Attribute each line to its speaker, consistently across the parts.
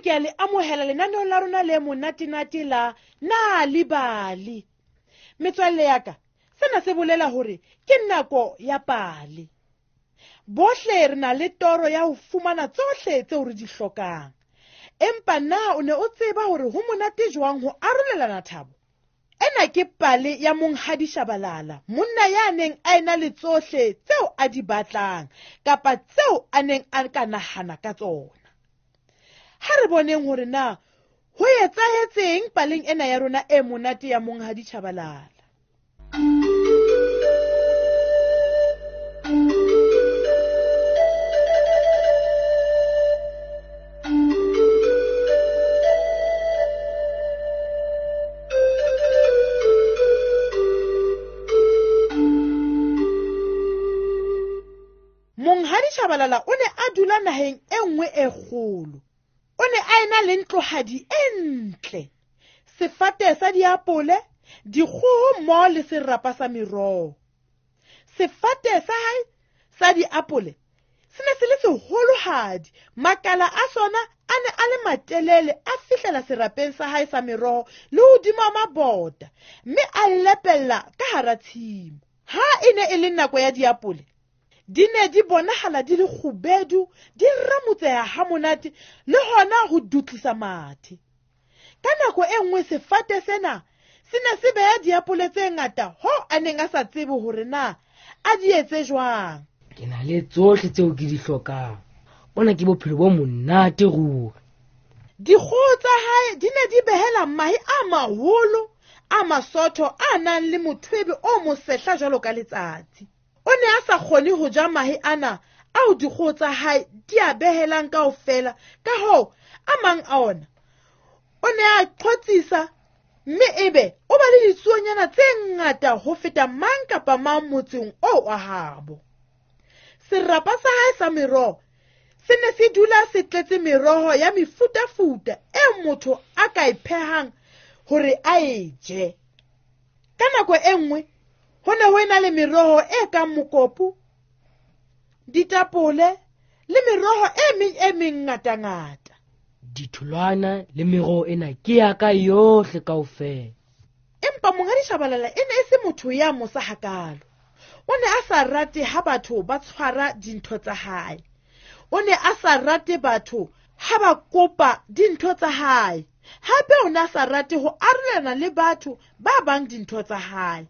Speaker 1: Bohle ke a le amohela lenaneong la rona le monatenate la Nal'ibali. Metswalle ya ka, sena se bolela hore ke nako ya pale. Bohle re na le toro ya ho fumana tsohle tseo re di hlokang. Empa na o ne o tseba hore ho monate jwang ho arolelana thabo? Ena ke pale ya Monghadi Shabalala, monna ya neng a ena le tsohle tseo a di batlang kapa tseo a neng a ka nahana ka tsona. Ha re boneng hore na ho etsahetseng paleng ena ya rona e monate ya Monghadi Shabalala. Monghadi Shabalala o ne a dula naheng e nngwe e kgolo. O ne a ena le ntlohadi e ntle, sefate sa diapole, dikgoho mmoho le serapa sa meroho. Sefate sa hae sa diapole se ne se le seholohadi, makala a sona a ne a le matelele a fihlela serapeng sa hae sa meroho le hodima mabota, mme a lepella ka hara tshimo. Ha e ne e le nako ya diapole, di ne di bonahala di le kgubedu, di ramotseha ha monate le hona ho dutlisa mathe. Ka nako e nngwe sefate sena se ne se beha diapole tse ngata hoo a neng a sa tsebe hore na a di etse jwang.
Speaker 2: Ke na le tsohle tseo ke di hlokang. Bona ke bophelo bo monate ruri.
Speaker 1: Dikgoho tsa hae di ne di behela mahe a maholo a masotho a nang le mothwebe o mosehla jwalo ka letsatsi. O ne a sa kgone ho ja mahe ana ao dikgoho tsa hae di a behelang kaofela, ka hoo a mang a ona o ne a qhotsisa mme ebe o ba le ditsuonyana tse ngata ho feta mang kapa mang motseng oo wa habo. Serapa sa hae sa meroho se ne se dula se tletse meroho ya mefutafuta e motho a ka e phehang hore a e je. Ka nako e nngwe ho ne ho ena le meroho e kang mokopu, ditapole le meroho e meng e mengatangata.
Speaker 2: Ditholwana le meroho ena ke ya ka yohle kaofela.
Speaker 1: Empa Monghadi Shabalala e ne e se motho ya mosa hakalo. O ne a sa rate ha batho ba tshwara dintho tsa hae. O ne a sa rate batho ha ba kopa dintho tsa hae. Hape o ne a sa rate ho arolelana le batho ba bang dintho tsa hae.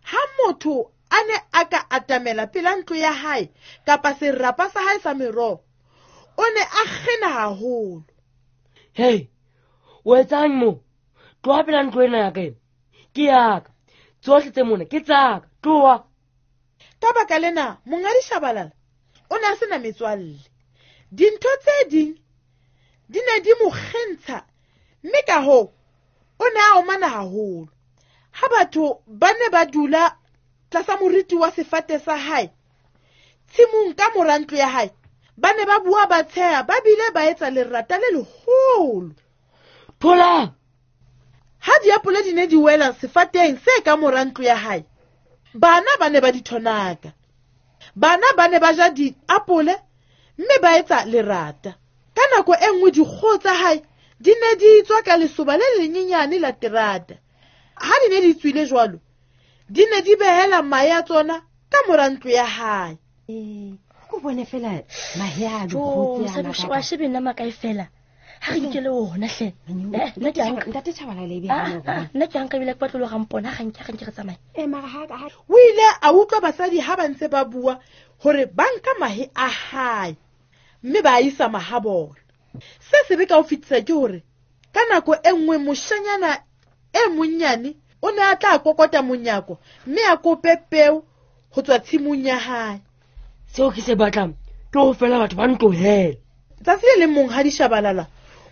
Speaker 1: Ha motho a ne a ka atamela pela ntlo ya hae kapa serapa sa hae sa meroho, o ne a kgena haholo.
Speaker 2: Hei, o etsang mo? Tloha pela ntlo ena ya ka ena. Ke ya ka. Tsohle tse mona ke tsa ka. Tloha.
Speaker 1: Ka baka lena, Monghadi Shabalala o ne a sena metswalle. Dintho tse ding di ne di mo kgentsha, mme ka hoo o ne a omana haholo. Ha batho ba ne ba dula tlasa moriti wa sefate sa hae tshimong ka mora ntlo ya hae, ba ne ba bua ba tsheha ba bile ba etsa lerata le leholo.
Speaker 2: Thola!
Speaker 1: Ha diapole di ne di wela sefateng se ka mora ntlo ya hae, bana ba ne ba di thonaka. Bana ba ne ba ja diapole mme ba etsa lerata. Ka nako e nngwe dikgoho tsa hae di ne di tswa ka lesoba le lenyenyane la terata. Ha di ne di tswile jwalo, di ne di behela mahe a tsona ka mora ntlo ya hae.
Speaker 3: O bone fela mahe a dikgoho tse a
Speaker 4: Mosadi, wa shebe nna makae fela. Ha re nkele ona hle. Nna ke anka.
Speaker 3: Ntate Tshabalala e be ha mo
Speaker 4: Nna ke anka ebile ke batlo le rampona, ha nke re tsamaye.
Speaker 3: Mara ha ka
Speaker 1: O ile a utlwa basadi ha ba ntse ba bua hore ba nka mahe a hae mme ba a isa mahabona. Se sebe ka ho fetisa ke hore ka nako e nngwe moshanyana e monnyane o ne a tla kokota monyako mme a kope peo ho tswa tshimong ya hae.
Speaker 2: Seo ke se batlang ke ho fela batho ba ntlohele.
Speaker 1: Tsatsi le leng Monghadi Shabalala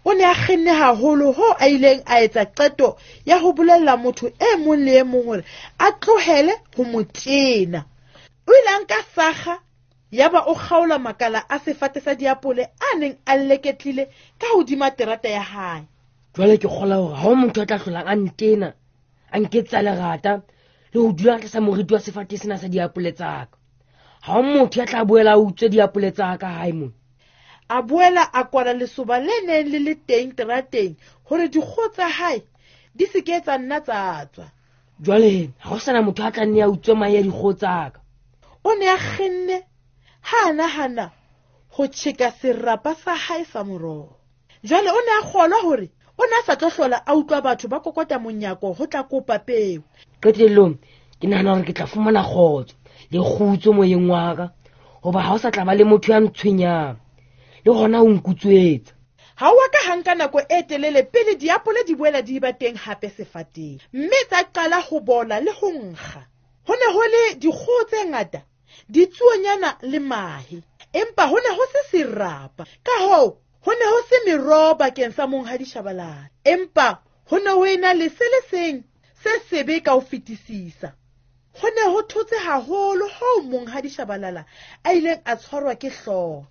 Speaker 1: o ne a kgenne haholo hoo a ileng a etsa qeto ya ho bolella motho e mong le e mong hore a tlohele ho mo tena. O ile a nka sakga yaba o kgaola makala a sefate sa diapole a neng a leketlile ka hodima terata ya hae.
Speaker 2: Jwale ke kgola hore ha ho motho a tla hlolang a ntena, a nketsa lerata le ho dula tlasa moriti wa sefate sena sa diapole tsa ka. Ha ho motho ya tla boela a utswe diapole tsa ka hae mona.
Speaker 1: A boela a kwala lesoba le neng le le teng terateng hore dikgoho tsa hae di se ke tsa nna tsa tswa.
Speaker 2: Jwale ha ho sana motho a tla nne a utswe mahe a dikgoho tsa ka.
Speaker 1: O ne a kgenne ha a nahana ho tjheka serapa sa hae sa moroho. Jwale o ne a kgolwa hore o ne a sa tlo hlola a utlwa batho ba kokota monyako ho tla kopa peo.
Speaker 2: Qetellong ke nahana hore ke tla fumana kgotso le kgutso moyeng wa ka, hoba ha o sa tla ba le motho ya ntshwenyang le hona o nkutswetsa.
Speaker 1: Ha o a ka ha nka nako e telele pele diapole di boela di ba teng hape sefateng, mme tsa qala ho bola le ho nkga. Ho ne ho le dikgoho tse ngata, ditsuonyana le mahe, empa ho ne ho se serapa. Ka hoo ho ne ho se meroho bakeng sa Monghadi Shabalala, empa ho ne ho ena le se le seng se sebe ka ho fetisisa. Ho ne ho thotse haholo hoo Monghadi Shabalala a ileng a tshwarwa ke hlooho.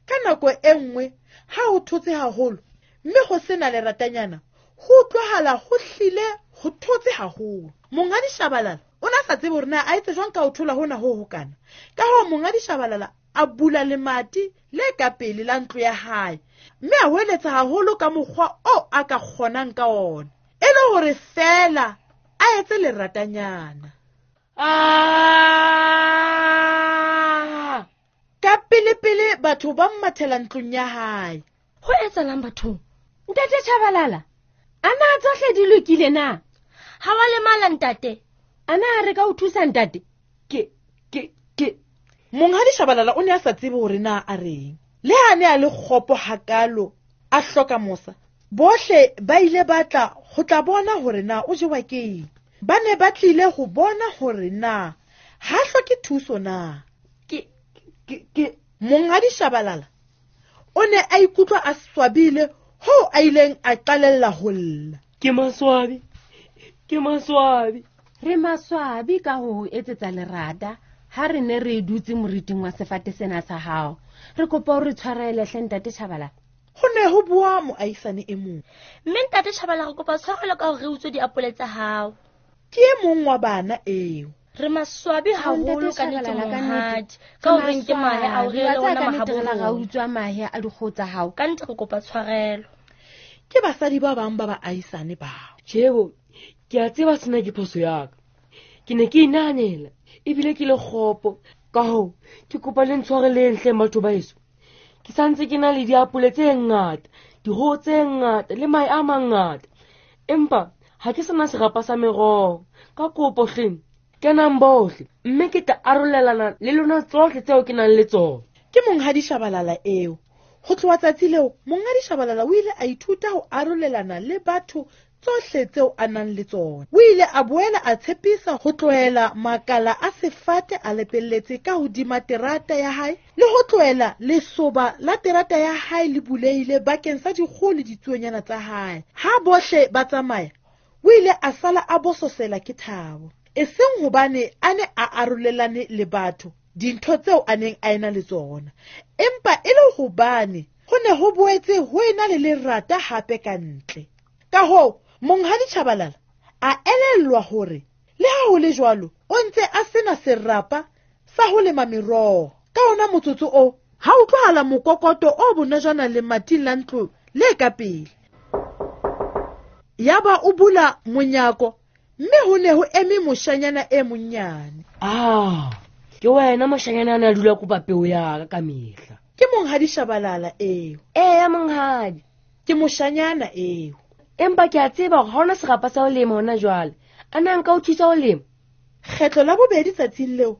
Speaker 1: Ka nako e nngwe ha ho thotse haholo mme ho sena leratanyana, ho utlwahala ho hlile ho thotse haholo. Monghadi Shabalala o ne a sa tsebe hore na a etse jwang ka ho thola hona ho hokana. Ka hoo Monghadi Shabalala a bula lemati le ka pele la ntlo ya hae mme a hweletsa haholo ka mokgwa oo a ka kgonang ka ona, e le hore feela a etse leratanyana. Ka pele-pele batho ba mmathela ntlong ya hae.
Speaker 4: Ho etsahalang bathong?
Speaker 3: Ntate Shabalala, a na tsohle di lokile na?
Speaker 4: Ha wa lemala ntate?
Speaker 3: A na re ka o thusa ntate?
Speaker 2: Ke.
Speaker 1: Monghadi Shabalala o ne a sa tsebe hore na a reng. Le ha ne a le kgopo hakalo, a hloka mosa. Bohle ba ile ba tla ho tla bona hore na o jewa ke eng. Ba ne ba tlile ho bona hore na ha hloke thuso na.
Speaker 2: Ke.
Speaker 1: Monghadi Shabalala o ne a ikutlwa a swabile hoo a ileng a qalella ho lla.
Speaker 2: Ke maswabi.
Speaker 3: Re maswabi ka ho etsetsa lerata ha re ne re dutse moriting wa sefate sena sa hao. Re kopa o re tshwarele hle ntate Shabalala.
Speaker 1: Ho ne ho bua moahisane e mong.
Speaker 4: Mme ntate Shabalala re kopa tshwarelo ka hore re utswe diapole tsa hao.
Speaker 1: Ke e mong wa bana eo.
Speaker 4: Re maswabi haholo ka nnete monghadi, ka hore nke mahe a o re le ona mahabo.
Speaker 3: Ra utswa mahe a dikgoho tsa hao.
Speaker 4: Ka nnete re kopa tshwarelo.
Speaker 1: Ke basadi ba bang ba baahisane bao.
Speaker 2: Tjhebo, ke a tseba sena ke phoso ya ka. Ke ne ke inahanela ebile ke le kgopo. Ka hoo ke kopa le ntshwareleng hle batho ba heso. Ke santse ke na le diapole tse ngata, dikgoho tse ngata le mahe a mangata, empa ha ke sena serapa sa meroho. Ka kopo hleng kenang bohle mme ke tla arolelana le lona tsohle tseo ke nang le tsona.
Speaker 1: Ke Monghadi Shabalala eo. Ho tloha tsatsi leo, Monghadi Shabalala o ile a ithuta ho arolelana le batho tsohle tseo a nang le tsona. O ile a boela a tshepisa ho tlohela makala a sefate a lepelletse ka hodima terata ya hae le ho tlohela lesoba la terata ya hae le bulehile bakeng sa dikgoho le ditsuonyana tsa hae. Ha bohle ba tsamaya, o ile a sala a bososela ke thabo, e seng hobane a ne a arolelane le batho dintho tseo a neng a ena le tsona, empa e le hobane ho ne ho boetse ho ena le lerata hape ka ntle. Ka hoo Monghadi Shabalala a elellwa hore le ha ho le jwalo o ntse a sena serapa sa ho lema meroho. Ka ona motsotso oo ha utlwahala mokokoto o bonojana lemating la ntlo le ka pele. Yaba o bula monyako mme ho ne ho eme moshanyana e monyane.
Speaker 2: Ke wena moshanyana a ne a dula kopa peo ya ka ka mehla.
Speaker 1: Ke Monghadi Shabalala eo.
Speaker 2: Eya monghadi,
Speaker 1: ke moshanyana eo.
Speaker 2: Empa ke a tseba hore ha hona serapa sa ho lema hona jwale. A na nka o thusa ho lema?
Speaker 1: Kgetlo la bobedi tsatsing leo,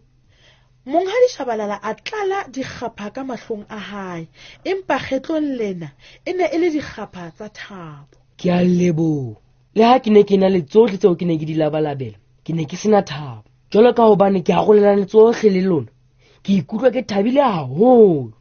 Speaker 1: Monghadi Shabalala a tlala dikgapha ka mahlong a hae, empa kgetlong lena e ne e le dikgapha tsa thabo.
Speaker 2: Ke a leboha. Le ha ke ne ke na le tsohle tseo ke ne ke di labalabela, ke ne ke sena thabo. Jwalo ka hobane ke arolelane tsohle le lona, ke ikutlwa ke thabile haholo.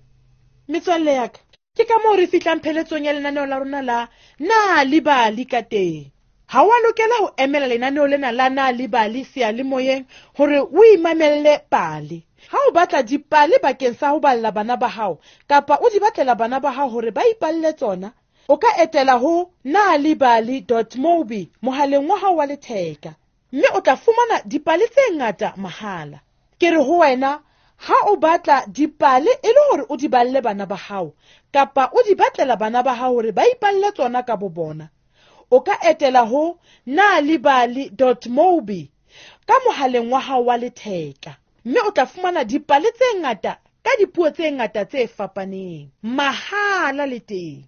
Speaker 1: Metswalle ya ka, ke ka moo re fihlang pheletsong ya lenaneo la rona la Na le Bali ka teng. Ha wa lokela ho emela lenaneo lena la Na le Bali seyalemoyeng hore o imamelle pale. Ha o batla dipale bakeng sa ho balla bana ba hao kapa o di batlela bana ba hao hore ba ipalle tsona, o ka etela ho nalibali.mobi mohaleng wa hao wa letheka, mme o tla fumana dipale tse ngata mahala. Ke re ho wena, Ha o batla dipale e le hore o di balle bana ba hao kapa o di batlela bana ba hao hore ba ipalle tsona ka bo bona, o ka etela ho nalibali mobi ka mohaleng wa hao wa letheka, mme o tla fumana dipale tse ngata ka dipuo tse ngata tse fapaneng mahala le teng.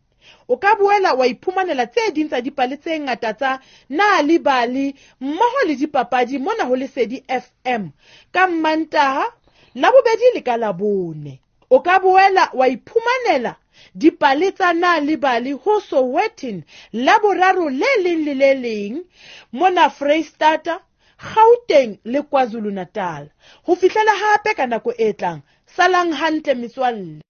Speaker 1: O ka boela wa iphumanela tse ding tsa dipale tse ngata tsa Nalibali mmoho le dipapadi mona ho Lesedi FM ka Mmantaha, Labobedi le ka Labone. O ka boela wa iphumanela dipale tsa Nalibali ho Sowetan Laboraro le leng le le leng mona Freistata, Gauteng le KwaZulu-Natal. Ho fihlela hape ka nako e tlang, salang hantle metswalle.